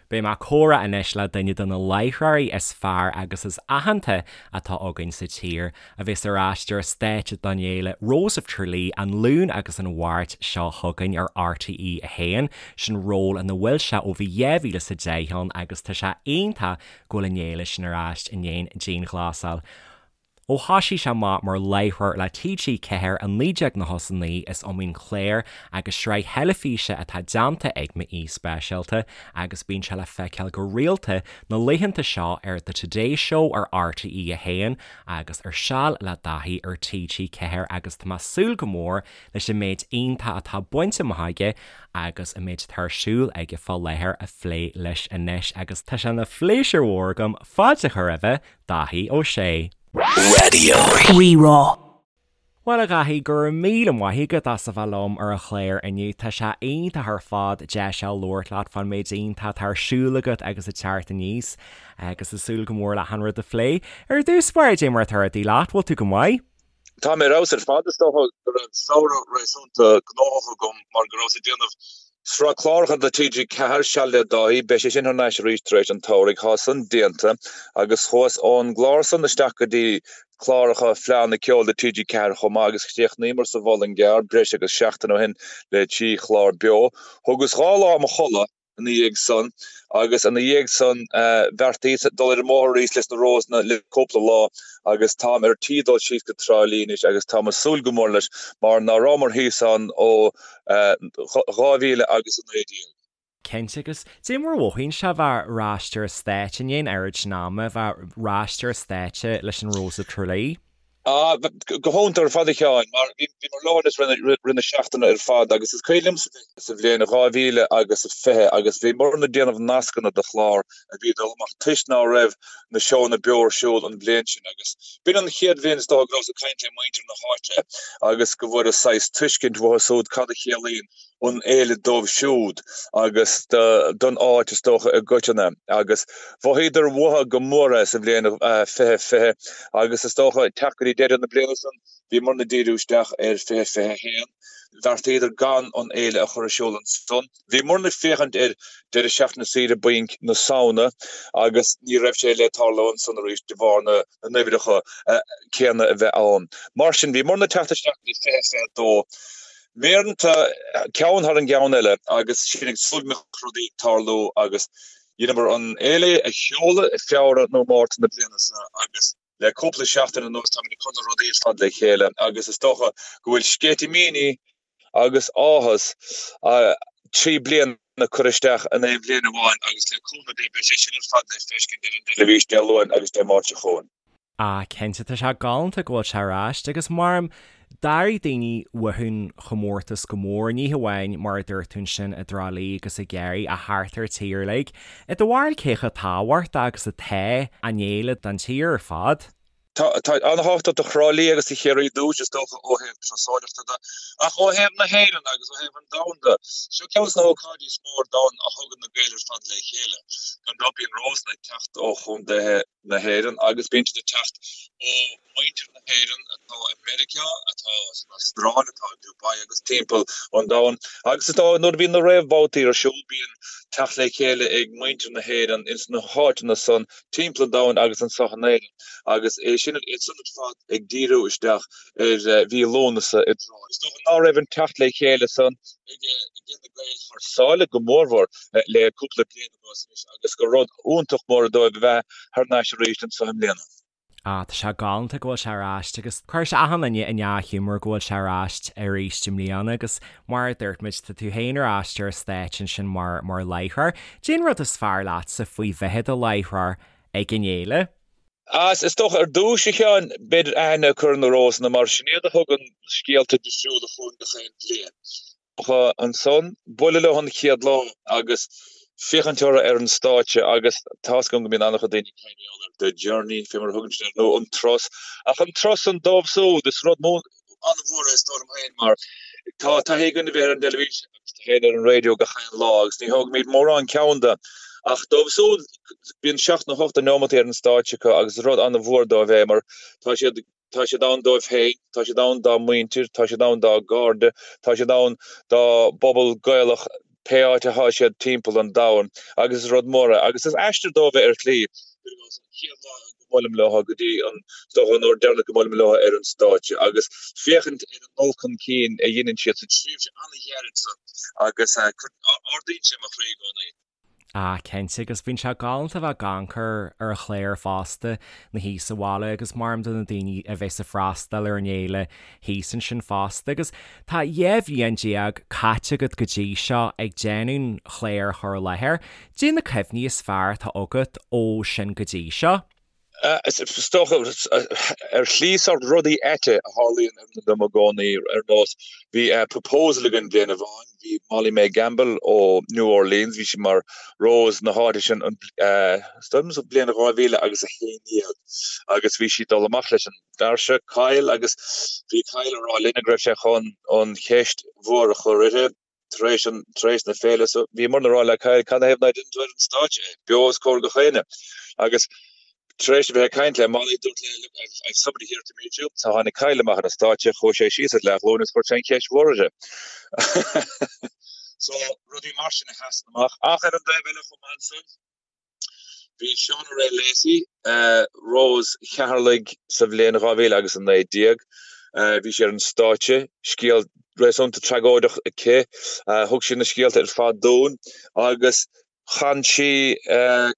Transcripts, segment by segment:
Beidh mé ag comhrá anois le duine de na láithreoirí is fearr agus is aitheanta atá againn sa tír, a bheas ar ais ar an stáitse don fhéile Rose of Tralee an Luan agus an Mháirt seo chugainn ar RTÉ 1. Sin ról ina bhfuil sé ó bhí 2010 ann agus tá sé iontach go bhfuil an fhéile sin ar ais i ndiaidh an dianghlasáil. Ó thoisigh sé amach mar láithreoir le TG4 i 1999 is iomaí clár agus sraith theilifíse atá déanta ag m'aoi speisialta agus bíonn sé le feiceáil go rialta na laethanta seo ar The Today Show ar RTÉ 1 agus ar Seal le Daithí ar TG4 agus tá mé ag súil go mór leis an méid iontach atá bainte amach aige agus an méid atá ar siúl aige fá láthair a phlé leis anois agus tá sé ina phléisiúr mhór agam fáilte a chur roimhe Dáithí Ó Sé. Raidió Rí-Rá. Bhuel a Dhaithí, go raibh míle maith agat as a bheith liom ar an chlár inniu. Tá sé iontach ar fad deis a labhairt leat fán méid iontach atá ar siúl agat agus ag teacht aníos agus ag súil go mór le achan rud a phlé. Ar dtús báire, cad é mar atá rudaí leat, bhfuil tú go maith? Tá mé ar fheabhas ar fad. Is dócha go raibh samhradh réasúnta gnóthach agam mar go rabhas ag déanamh sraith cláracha do TG4, Seal le Dáithí. Beidh sé sin thar n-ais arís tar éis an tsamhraidh. Tá san déanta agus chuas ón gclár san isteach go dtí cláracha Fleadhanna Ceoil do TG4 chomh maith agus chríochnaíomar sa Mhuileann gCearr breis agus seachtain ó shin le 3 chlár beo. Thugas 2 lá i mo chodladh. ina dhiaidh san agus ina dhiaidh san bheartaíos dul ar an mbóthar arís leis na Rósanna le cúpla lá agus táim ar tí dul síos go Trá Lí anois agus táim ag súil go mór leis mar ná rabhamar thíos ann ó 2019. Cinnte, agus cad é mar a mhothaíonn sé a bheith ar ais ar an stáitse i ndiaidh an oiread sin ama, a bheith ar ais ar an stáitse leis an Rose of Tralee? Ah, go hiontach ar fad a Sheáin, mar bhíomar leo anois rith na seachtaine ar fad agus is cuimhin liomsa sa bhliain 2000 agus 20 agus bhíomarna ag déanamh nascanna do chlár a bhí ag dul amach toisc ná raibh na seónna beo ar siúl an bhliain sin agus b'in an chéad bhliain is dócha go rabhas ag caint le muintir na háite agus go bhfuaireas saghas tuiscint uathu siúd cad a chiallaíonn an fhéile dóibh siúd agus don áit is dócha i gcoitinne agus mhothaíodar uathu go mór é sa bhliain 2020 agus is dócha ag teacht go dtí deireadh na bliana san bhíomarna ag díriú isteach ar 2021. Bheartaíodar gan an fhéile a chur ar siúl ansan. Bhíomarna ag féachaint ar deireadh seachtaine saoire bainc na Samhna agus ní raibh sé le tarlú ansan arís de bharr na n-uimhreacha céanna a bheith ann. Mar sin bhíomarna ag teacht isteach go dtí 2022. Méireanta, ceann thar an gceann eile agus sinn ag súil go mbeadh rudaí ag tarlú agus dheineamar an fhéile a sheoladh i Feabhra nó Márta na bliana seo agus le cúpla seachtain anuas táimid ag cur na rudaí ar fad le chéile agus is dócha go bhfuil sceitimíní agus áthas 3 bliana curtha isteach in aon bhliain amháin agus le cúnamh Dé beidh sé sin ar fad le feiscint ar an dteilifís Dé Luain agus Dé Máirt seo chugainn. Ah cinnte, tá sé galánta go bhfuil sé ar ais agus mar d'airigh daoine uathu an chomórtas go mór, ní hamháin mar a dúirt tú ansin i dTrá Lí agus i gCiarraí ach thart ar an tír uilig. I do bharúil cé chomh tábhachtach agus atá an fhéile don tír ar fad? Tá an-tábhachtach do Thrá Lí agus do Chiarraí ar dtús, is dócha, ó thaobh turasóireachta de, ach ó thaobh na hÉireann agus ó thaobh an domhain de, seo ceann de na hócáidí is mó ar domhan a thugann na Gaeil ar fad le chéile. Gan dabht bíonn Rósanna ag teacht ó chontaetha na hÉireann agus bíonn siad ag teacht ó mhuintir na hÉireann atá i Meiriceá, atá san Astráil, atá i Dubai agus timpeall an domhain. Agus is dóigh nuair a bhíonn na réamhbhabhtaí ar siúl bíonn teacht le chéile ag muintir na hÉireann ins na háiteanna san timpeall an domhain agus anseo in Éirinn agus é sin iad san ar fad ag díriú isteach ar mhí Lúnasa i dTrá. Is dócha ná raibh an teacht le chéile san ag na Gaeil thar sáile go mórmhór le cúpla bliain anuas anois agus gur rud iontach mór dóibh a bheith thar n-ais arís anseo i mbliana. Ah, tá sé galánta go bhfuil sé ar ais agus cuirfidh sé achan duine i ndea-ghiúmar go bhfuil sé ar ais arís i mbliana agus mar a dúirt muid, tá tú féin ar ais ar an stáitse ansin mar mar láithreoir. Cad é an rud is fearr leatsa faoi bheith i do láithreoir ag an fhéile? Ah, is dócha ar dtús, a Sheáin, b'fhéidir aithne a chur ar na Rósanna mar sin iad a thugann scéalta difriúla chugainn gach aon bhliain. Ansan, bualadh leo an chéad lá agus féachaint orthu ar an stáitse agus tá's agam go mbíonn an-chuid daoine ag caint ar the journey, fé mar a thugann siad air, nó an turas. Ach an turas san dóibh siúd, is rud an-mhór é is dóigh liom féin mar tá taithí againn a bheith ar an dteilifís agus taithí ar an raidió gach aon lá agus ní thógaimid mórán ceann de. Ach dóibh siúd, bíonn seacht nó hocht de neomataí ar an stáitse acu agus is rud an-mhór dóibh é mar tá siad Tá siad ann dóibh féin, tá siad ann dá muintir, tá siad ann dá gcairde, tá siad ann dá bpobal Gaelach. pé áit athá siad timpeall an domhain agus is rud mór é agus is aistear dóibh é ar shlí. Cuir i gcás, an chéad lá go mbuailim leo go dtí an, is dócha, an uair deireanach go mbuailim leo ar an stáitse agus féachaint ar an dul chun cinn a dheineann siad sa tréimhse an-ghairid so agus ardaíonn sé mo chroí i gcónaí. Ah, cinnte, agus bíonn sé galánta a bheith ag amharc ar an chlár fosta, na thíos sa bhaile agus maram do na daoine a bheas ag freastal ar an fhéile thíos ansin fosta. Agus tá 12 bhliain caite agat go dtí seo ag déanamh an chláir a chur i láthair. Caidé na cuimhní is fearr atá agat ó sin go dtí seo? Is dócha, ar shlí sórt rudaí aite a tharlaíonn dom i gcónaí, ar nós, bhí proposal againn bliain amháin, bhí Molly Mae Gamble ó New Orleans, bhí sí mar Rose na háite sin, is dóigh liom sa bhliain 2000 agus 11, agus bhí sí ag dul amach leis an bhfear seo, Kyle, agus bhí Kyle ag rá linne go raibh sé chun an cheist mhór a chur uirthi. tar éis an, tar éis na féile so bhíomarna ag rá le Kyle cad 'na thaobh ná déanann tú ar an stáitse é, beo os comhair gach éinne. Agus tar éis a bheith ag caint le Molly dúirt léi look I've, I've somebody here to meet you. So tháinig Kyle amach ar an stáitse, chuaigh sé síos ar leathghlúin agus chuir sé an cheist mhór uirthi. So rudaí mar sin a sheasann amach. Ach ar an dtaobh eile chomh maith ansan, Bhí Shauna Rae Lacey, Rose Cheatharlaigh sa bhliain 2000 agus 19. Bhí sí ar an stáitse, scéal réasúnta tragóideach aici. Thug sí na scéalta ar fad dúinn agus chan sí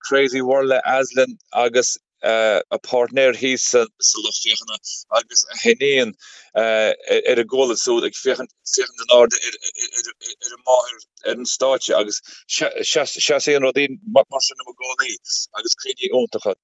Crazy World le Aslin agus a páirtnéir thíos sa lucht féachana agus a hiníon ar a gualainn siúd ag féachaint féachaint in airde ar a máthair ar an stáitse agus seasann rudaí mar sin liom i gcónaí agus cuimhní iontacha.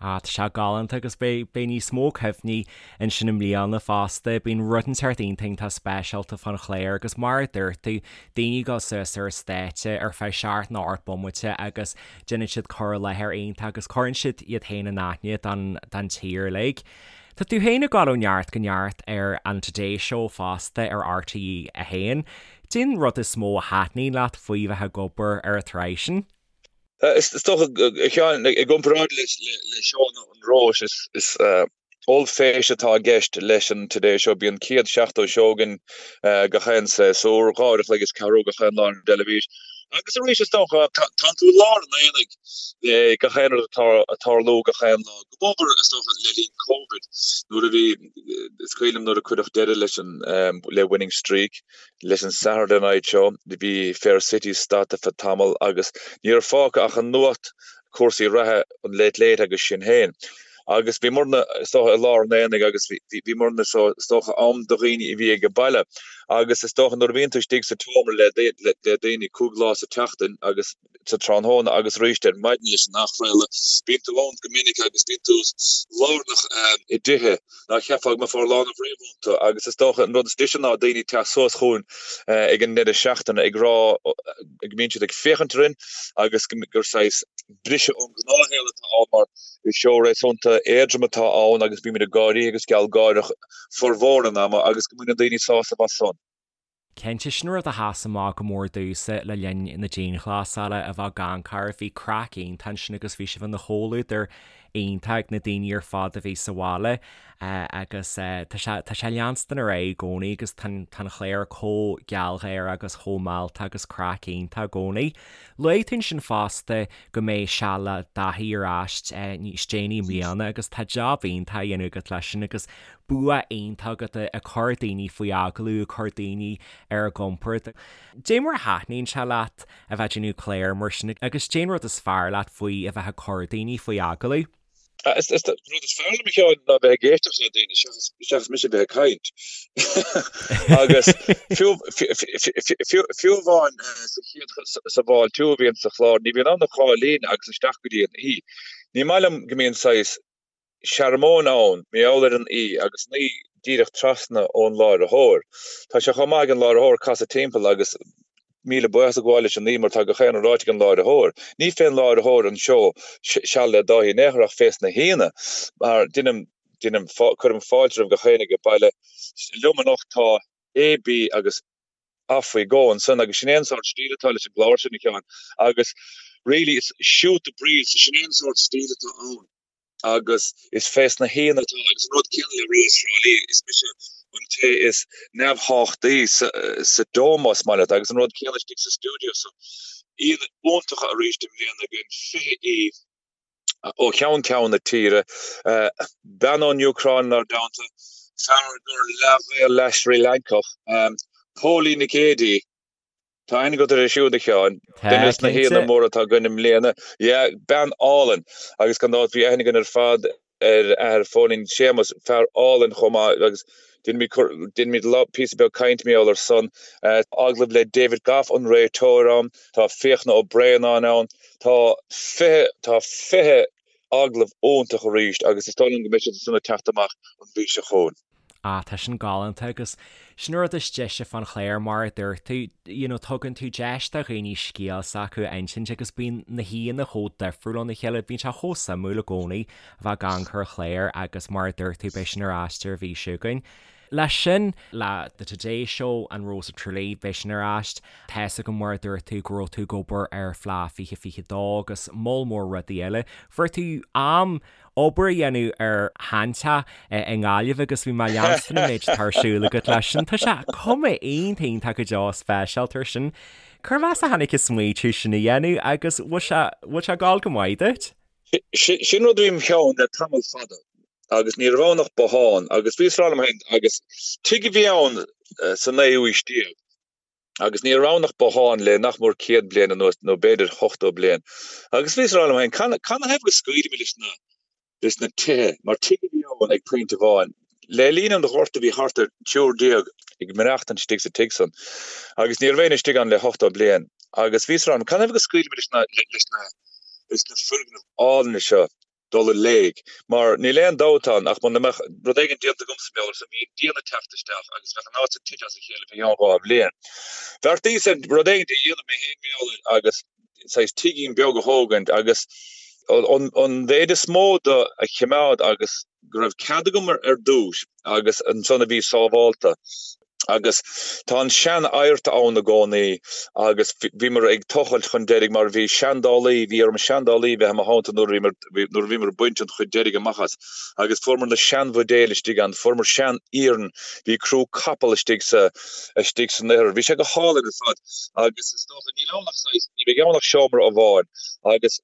Ah, tá sé galánta agus beidh beidh níos mó cuimhní ansin i mbliana fosta. Bíonn rud inteacht iontach iontach speisialta fán chlár agus mar a dúirt tú, daoine ag dul suas ar an stáitse ar feadh seacht nó 8 bomaite agus Déanann siad cur i láthair iontach agus cuireann siad iad féin in aithne don tír uilig. Tá tú féin ag dul ó neart go neart ar an Today Show fosta ar RTÉ 1. Cén rud is mó a thaitníonn leat faoi bheith ag obair ar an tsraith sin? Is dócha, a Sheáin, i gcomparáid le seónna an Róis, is Ollphéist atá i gceist leis an Today Show. Bíonn 170 seó againn gach aon séasúr, 2 uair a chloig is ceathrú gach aon lá ar an dteilifís. Agus arís, is dócha, tánn tú i lár an aonaigh le gach aon rud atá ag tarlú gach aon lá. Go mór, is dócha, le linn Covid, nuair a bhí, is cuimhin liom nuair a cuireadh deireadh leis an, le Winning Streak, leis an Saturday Night Show, bhí Fair City stadta feadh tamall agus ní raibh fágtha ach an nuacht, cúrsaí reatha, an Late Late agus sinn féin. Agus bhíomarna, is dócha, i lár an aonaigh agus bhíomarna, is dócha, am do dhaoine a bhí ag baile. Agus is dócha nuair a bhíonn tú istigh sa tseomra le daoine 5 lá sa tseachtain agus sa tráthnóna agus arís ar maidin leis an athchraoladh, bíonn tú ann go minic agus bíonn tú lárnach i dtithe ná cheapfá go mbeifeá lárnach riamh iontu. Agus is dócha an rud is deise ná daoine ag teacht suas chugainn ag an ndeireadh seachtaine ag rá go mbíonn siad ag féachaint orainn agus gur saghas briseadh ón ngnáthshaol atá ann mar is seó réasúnta éadrom atá ann agus bímid ag gáirí agus gealgháireach formhór an ama agus go mbaineann daoine sásamh as san. Cinnte, sin rud a sheas amach go mór domhsa le linn na dianghlasála, a bheith ag amharc oraibh, bhí craic iontach ansin agus bhí sibh ina chomhluadar iontach ag na daoine ar fad a bhí sa bhaile agus tá sé tá sé leanstan ar aghaidh i gcónaí agus tá an chlár chomh gealgháireach agus chomh mealltach agus craic iontach i gcónaí. Luaigh tú ansin fosta go mbeidh Seal le Dáithí ar ais níos déanaí i mbliana agus tá jab iontach á dhéanamh agat leis sin agus bua iontach agat ag cur daoine faoi agallamh, ag cur daoine ar a gcompord. Dé mar a thaitníonn sé leat a bheith ag déanamh clár mar sin agus dén rud is fearr leat faoi a bheith ag cur daoine faoi agallamh? An rud is fearr liom a Sheáin ná bheith ag éisteacht le daoine seachas mise a bheith ag caint. Agus fiú fiú amháin sa chéad sa bhfáiltiú a bhíonn sa chlár, ní bhíonn ann ach dhá líne agus isteach go dtí an aoi. Ní maith liom go mbíonn saghas searmóin ann, mar gheall ar an aoi agus an aoi díreach trasna ón láithreoir. Tá sé chomh maith ag an láithreoir casadh timpeall agus míle buíochas a ghabháil leis an aoi mar tá gach aon rud ráite ag an láithreoir. Ní fén láithreoir an seó Seal le Dáithí in aon chor ach fés na haíonna mar deinim, deinim, cuirim fáilte roimh gach éinne age baile. Liom anocht tá A, B agus off we go ansan agus sin é an sórt stíl atá leis an gclár sin a Sheáin agus really it's shoot the breeze, sin é an sórt stíl atá ann. agus is fés na haíonna atá agus an rud céanna le Rós Thrá Lí, is mise. an té is neamhthráchtaí sa Dome más maith leat agus an rud céanna istigh sa stiúideo so aíonna iontacha arís i mbliana againn, 20 aoi ó cheann ceann na tíre, bean ón Úcráin inár dteannta, fear gur leath-Ghael leath-Srí Lancach, Póilín Nic Géidigh, Tá aithne agat uirthi siúd, a Sheáin. Duine des na haíonna móra atá againn i mbliana. Yeah, bean álainn. Agus gan dabht bhí aithne againn ar fad ar athair Phóilín, Séamus, fear álainn chomh maith agus déanfaimid píosa beag cainte mar gheall ar san. Agallamh le David Gough, an réiteoir ann. Tá Fiachna Ó Braonáin ann. Tá 20, tá 20 agallamh iontach arís agus is dóigh liom go mbeidh siad san ag teacht amach an mhí seo chugainn. Ah, tá sin galánta agus sin an rud is deise fán chlár mar a dúirt tú, you know, tugann tú deis do dhaoine scéal s'acu a insint agus bíonn na haíonna chomh difriúil óna chéile, bíonn sé chomh suimiúil i gcónaí a bheith ag amharc ar an chlár agus mar a dúirt tú beidh sin ar ais ar an mhí seo chugainn. Leis sin, le The Today Show and Rose of Tralee, beidh sin ar ais. Tá's agam mar a dúirt tú go raibh tú ag obair ar Fleadh 2022 agus moll mór rudaí eile. Fuair tú am obair a dhéanamh ar sheanteach i nGaillimh agus bhí mé ag leanstan an méid atá ar siúl agat leis sin. Tá sé cuma iontach iontach go deo speisialta ar sin. Cérbh as a tháinig an smaoitiú sin a dhéanamh agus bhfuil sé bhfuil sé ag gabháil go maith duit? Sin rud a bhí im cheann le tamall fada agus ní raibh ann ach bothán agus bhíos ag rá liom féin agus tigh a bhí ann sa naoú aois déag agus ní raibh ann ach bothán le nach mór 100 bliain anuas, nó b'fhéidir 80 bliain. Agus bhíos ag rá liom féin, canathaobh go scaoilfimid leis na, leis na tithe, mar tigh a bhí ann ag pointe amháin. Le linn an Ghorta bhí thart ar 13 ag maireachtaint istigh sa tigh san, agus ní raibh éinne istigh ann le 80 bliain. Agus bhíos ag rá liom, canathaobh go scaoilfimid leis na, leis na, leis na foirgnimh álainne seo, dul i léig. Mar níl aon dabht ann ach muna mbeadh rud éigin déanta agamsa mar gheall air san, bhí an díon ag teacht isteach agus bheadh an áit san tite as a chéile fé cheann 2 bhliain. Bheartaíos ar rud éigin a dhéanamh mé féin mar gheall air agus saghas tigín beag a thógaint agus an mhéid is mó de a chimeád agus go raibh cead agam ar dtús agus ansan a bhí sábhálta. Agus tá an sean-adhart ann i gcónaí agus bhíomar ag tochailt chun deiridh mar bhí seandálaí, bhí orm seandálaí bheith i mo theannta nuair a bhíomar, nuair a bhíomar ag baint an chuid deiridh amach as agus fuaireamar na seanbhuidéil istigh ann, fuaireamar sean-iarann, bhí crú capall istigh sa, istigh san ithir. Bhí sé go hálainn ar fad agus is dócha, níl ann ach saghas, ní bheidh ann ach seomra amháin agus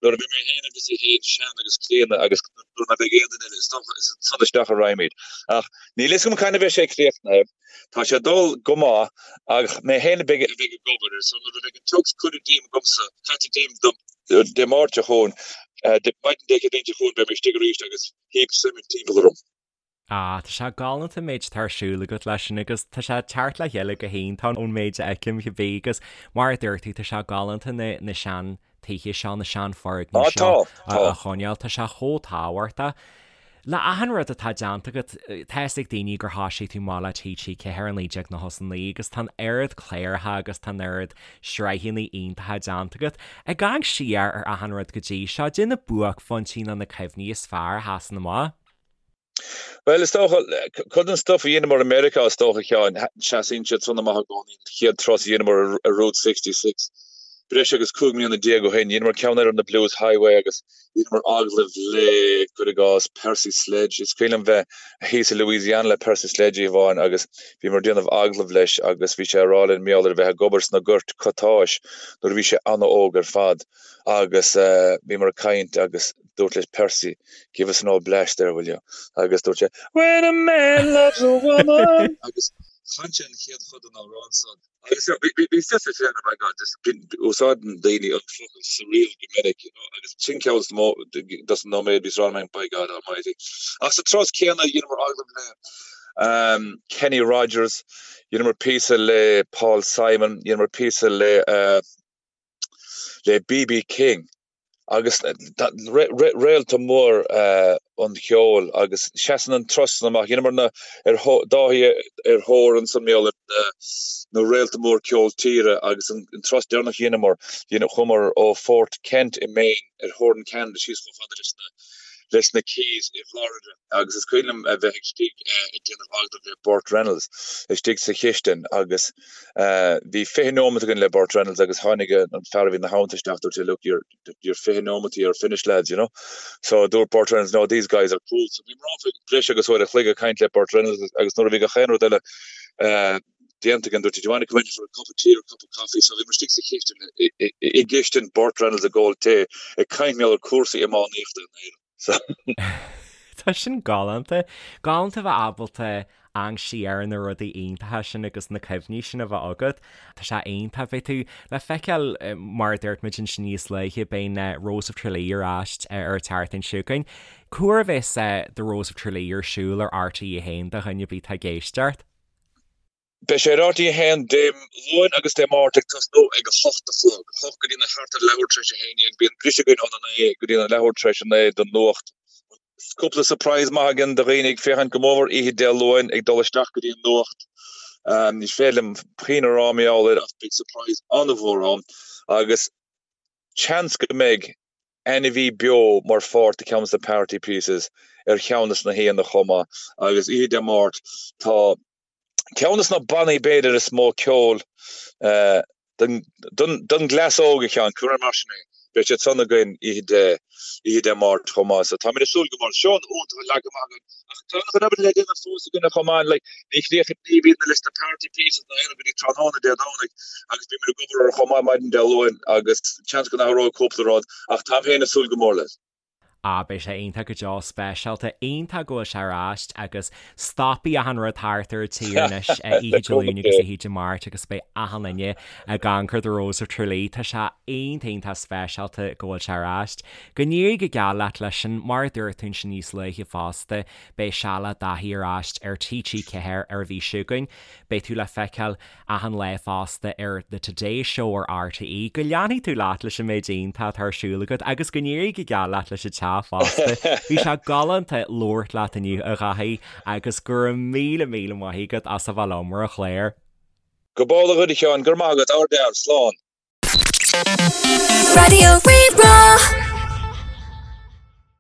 Nuair a bheidh mé féin agus í féin sean agus críonna agus nuair ná beidh aon duine eile, is dócha, is ansan isteach a raghaimid. Ach níl fhios agam cathain a bheidh sé críochnaithe. Tá sé ag dul go maith ach mé féin a bheidh a bheidh ag obair air so nuair a bheidh an tiogs curtha díom agamsa, caite díom Dé Máirt seo chugainn, maidin Dé Céadaoin seo chugainn beidh mé istigh arís agus heap suimint timpeall orm. Ah, tá sé galánta an méid atá ar siúl agat leis sin agus tá sé ag teacht le chéile go hiontach ón méid a fheicim cibé agus mar a dúirt tú tá sé galánta na, na sean tithe seo, na sean foirgnimh seo a choinneáil, tá sé chomh tábhachtach. Le achan rud atá déanta agat, tá fhios ag daoine gur thoisigh tú amach le TG4 i 1999 agus tá an oiread cláracha agus tá an oiread sraitheanna iontacha déanta agat. Ag amharc siar ar achan rud go dtí seo, caidé na buaicphointí nó na cuimhní is fearr a sheasann amach. Bhuel, is dócha, cuid den stuff a dheineamar i Meiriceá, is dócha, a Sheáin, seasaíonn siad san amach i gcónaí, an chéad turas a dheineamar ar Route 66, breis agus 15 mbliana ó shin, dheineamar ceann eile ar na Blues Highway agus dheineamar agallamh le, cuir i gcás, Percy Sledge. Is cuimhin liom bheith thíos i Louisiana le Percy Sledge oíche amháin agus bhíomar ag déanamh agallamh leis agus bhí sé ag rá linn mar gheall ar a bheith ag obair sna goirt cottais nuair a bhí sé an-óg ar fad agus bhíomar ag caint agus dúrt leis Percy, give us an old blast there, will you? Agus dúirt sé, When a man loves a woman! Agus chan sé an chéad chuid den amhrán san. Agus bhí fios féin, oh my God, just úsáideann daoine an focal surreal go minic, you know, agus sin ceann dos na nóiméid bhíos ag rá by God almighty. Ach sa turas céanna dheineamar agallamh le um, Kenny Rogers, dheineamar píosa le Paul Simon, dheineamar píosa le uh, le B.B. King. agus réalta mór an cheoil agus seasann an turas san amach. Dheineamar na ar Dáithí ar thóir ansan mar gheall ar na réalta mór ceol tíre agus an turas deireanach a dheineamar, chuamar ó Fort Kent i Maine ar theorainn Ceanada síos chomh fada leis na. leis na Keys i bhFlorida agus is cuimhin liom a bheith istigh ag déanamh agallamh le Burt Reynolds istigh sa chistin agus bhí 20 nóimeat againn le Burt Reynolds agus tháinig an fear a bhí ina theannta isteach dúirt sé look you're you're 20 nóimeataí are finished lads you know so dúirt Burt Reynolds no these guys are cool so bhí mé ann breis agus uair a chloig ag caint le Burt Reynolds agus nuair a bhí gach aon rud eile déanta againn dúirt do you want to come in for a cup of tea or a cup of coffee so bhí muid istigh sa chistin i gcistin Burt Reynolds ag ól tae ag caint mar gheall ar cúrsaí iománaíochta in Éirinn. So. Tá sin galánta. Galánta a bheith ábalta amharc siar ar na rudaí iontacha sin agus na cuimhní sin a bheith agat. Tá sé iontach. Beidh tú le feiceáil, mar a dúirt muid ansin níos luaithe, beidh na Rose of Tralee ar ais ar an tseachtain seo chugainn. Cá huair a bheas The Rose of Tralee ar siúl ar RTÉ 1 do dhuine ar bith atá ag éisteacht? Beidh sé ar RTÉ 1 Dé Luain agus Dé Máirt ag tosnú ag a hocht a chlog, 8 go dtí na thart ar leathuair tar éis a 11. Bíonn briseadh againn óna 9 go dtí na leathuair tar éis a 9 don nuacht. Cúpla surprise maith againn do dhaoine ag féachaint go mórmhór oíche Dé Luain ag dul isteach go dtí an nuacht. Ní féidir liom puinn a rá mar gheall air ach beidh surprise an-mhór ann agus seans go mbeidh ainmhí beo mar pháirt de cheann de na party pieces ar cheann de na haíonna chomh maith agus oíche Dé Máirt tá ceann de na bannaí b'fhéidir is mó ceol don gcleas óg a Sheáin, cuir mar sin é, beidh siad san againn oíche Dé oíche Dé Máirt chomh maith so táimid ag súil go mór. Seó iontach leagtha amach againn ach tá an obair le déanamh fós againn chomh maith like ní chríochnaíonn ní bhíonn leis na party pieces ná aon rud go dtí tráthnóna Dé Domhnaigh agus bímid ag obair orthu chomh maith maidin Dé Luain agus seans go n-athróidh cúpla rud ach táim féin ag súil go mór leis. Ah beidh sé iontach go deo, speisialta, iontach go bhfuil sé ar ais agus stopfaidh achan rud thart ar an tír anois oíche Dé Luain agus oíche Dé Máirt agus beidh achan duine ag amharc ar The Rose of Tralee. Tá sé iontach iontach speisialta go bhfuil sé ar ais. Go n-éirí go geal leat leis sin, mar a dúirt tú ansin níos luaithe fosta, beidh Seal le Daithí ar ais ar TG4 ar an mhí seo chugainn. Beidh tú le feiceáil achan lá fosta ar The Today Show ar RTÉ. Go leanfaidh tú leat leis an méid iontach atá ar siúl agat agus go n-éirí go geal leat leis an teach fosta. Bhí sé galánta labhairt leat inniu, a Dhaithí, agus go raibh míle míle maith agat as a bheith liom ar an chlár. Go b'amhlaidh dhuit a Sheáin, go raibh maith agat, ardfhear, slán. Raidió Rí-Rá.